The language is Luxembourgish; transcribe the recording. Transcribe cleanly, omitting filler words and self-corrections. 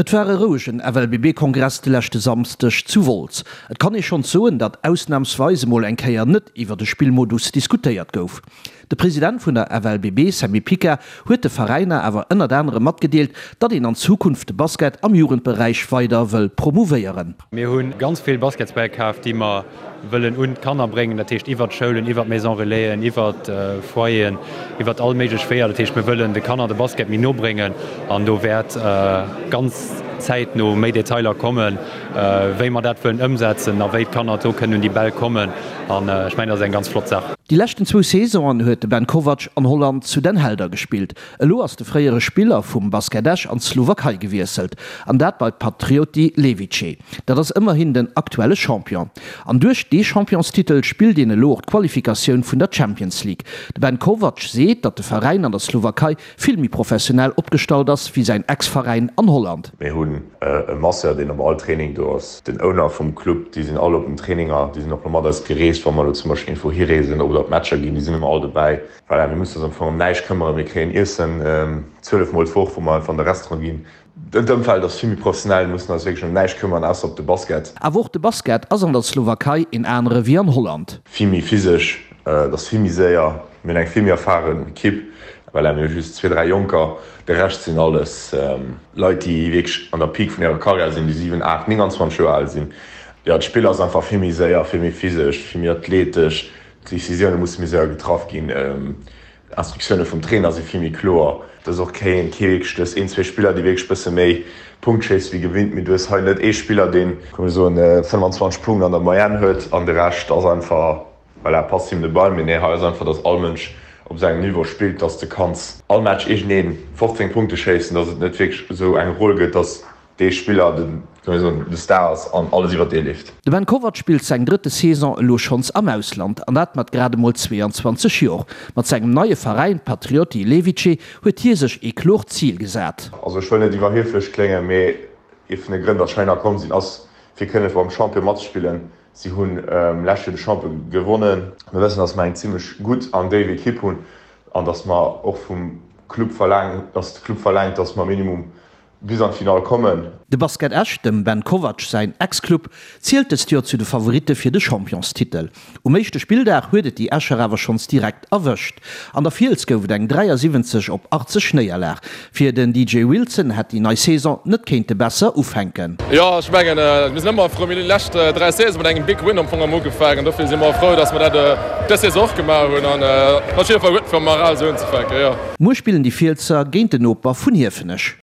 Et war e rouegen FLBB-Kongress de leschte Samsdeg zu Wolz. Et kann ee schonns soen, datt ausnamsweis emol eng Kéier net iwwer de Spillmodus diskutéiert gouf. De President vun der FLBB, Sammy Pica, huet de Veräiner awer ënnert anerem matgedeelt, datt een an Zukunft de Basket am Jugendberäich weider wëll promouvéieren. Mir hu ganz vill Basketsbäll kaf, déi mer wëllen un d'Kanner bréngen, dat heescht iwwert d'Schoulen, iwwert d'Maison Relaisen, iwwert Foyeren, iwwert all méiglech Weeër. Dat heescht, mir wëllen de Kanner de Basket méi no bréngen an do wäert ganz zäitno méi Detailer kommen, wéi mer dat wëllen ëmsetzen a wéi d'Kanner do kënnen un déi Bäll kommen. An ech mengen, dat ass eng ganz flott Saach. Déi leschten zwou Saisonen huet de Ben Kovac an Holland zu Den Helder gespillt. Elo ass de fréiere Spiller vum Basket Esch an d'Slowakei gewiesselt, an dat bei Patrioti Levice. Dat ass ëmmerhin den aktuelle Champion. An duerch dee Championstitel spillt een elo och d'Qualifikatioun vun der Champions League. De Ben Kovac seet, datt de Veräin an der Slowakei vill méi professionell opgestallt ass wéi säin Ex-Veräin an Holland. Mir hunn e Masseur, deen op all Training do ass. Den Owner vum Club, déi sinn all op den Traininger, déi sinn och elo mat eis gereest, wa mer elo zum Beispill iergendwou hireesen oder op Matcher ginn, déi sinn ëmmer all dobäi. Voilà, mir mussen eis am Fong ëm näischt këmmeren. Mir kréien Iessen 12 mol d'Woch, wou mer einfach an de Restaurant ginn. D'Ëmfeld ass vill méi professionell, mir mussen eis wierklech ëm näischt këmmeren, ausser op de Basket. Awer och de Basket ass an der Slowakei een anere wéi an Holland. Vill méi physesch, et ass vill méi séier, mir hunn eng vill méi erfaren Ekipp. Voilà, mir hu just zwee, dräi Jonker, de Rescht sinn alles Leit, déi wierklech an der Peak vun hirer Karriär sinn, déi 7, 8, 29 Joer al sinn. Jo, d'Spill ass einfach vill méi séier, vill méi physesch, vill méi athletesch. D'Decisioune musse méi séier getraff ginn, d'Instruktioune vum Trainer si vill méi kloer. Et ass och kee wierklech, du hues een, zwee Spiller, déi wierklech bësse méi Punkt schéisse wéi gewinnt, mee du hues hei net ee Spiller, deen, komm mir soen, 25 Punkten an der Moyenne huet an de Rescht ass einfach, voilà, passt him de Ball. Mee nee, hei ass einfach, datt all Mënsch op sengem Niveau spillt, datt s de kanns all Match iergendee 15 Punkte schéissen, datt et net wierklech esou eng Roll gëtt, datt dee Spiller de, soll ech soen, de Star ass an alles iwwer dee leeft. De Ben Kovac spillt seng drëtte Saison elo schonns am Ausland, an dat mat grad emol 22 Jor. Mat sengem neie Veräin Patrioti Levice huet hie sech ee kloert Zil gesat. Also ech wëll net iwwerhieflech kléngen, mee ee vun de Grënn, datt ech heihinner komm sinn, ass fir kënne beim Champion matzespillen. Si hunn lescht Joer de Champion gewonnen. Mir wëssen, datt mer eng zimmlech gutt an déif Ekipp hunn an datt mer och vum Club verlaangen, datt de Club verlaangt, datt mer minimum bis an d'Finall kommen. De Basket Esch, dem Ben Kovac säin Ex-Club, zielt dëst Joer zu de Favoritte fir de Championstitel. Um éischte Spilldag huet et déi Escher awer schonns direkt erwëscht. An der Fiels gouf et eng 73 op 80 Néierlag. Fir den DJ Wilson hätt déi nei Saison net kéinte besser ufänken. Jo, ech mengen, mir sinn ëmmer frou. Mir hunn déi lescht 3 Saisone mat engem Big Win am Fong am ugefaangen. Dofir si mer frou, dass mer dat dës Saison och gemaach hunn. An et ass op jidde Fall gutt fir moral esou unzefänken, jo. Muer spillen déi Fielser géint den Noper vun Hiefenech.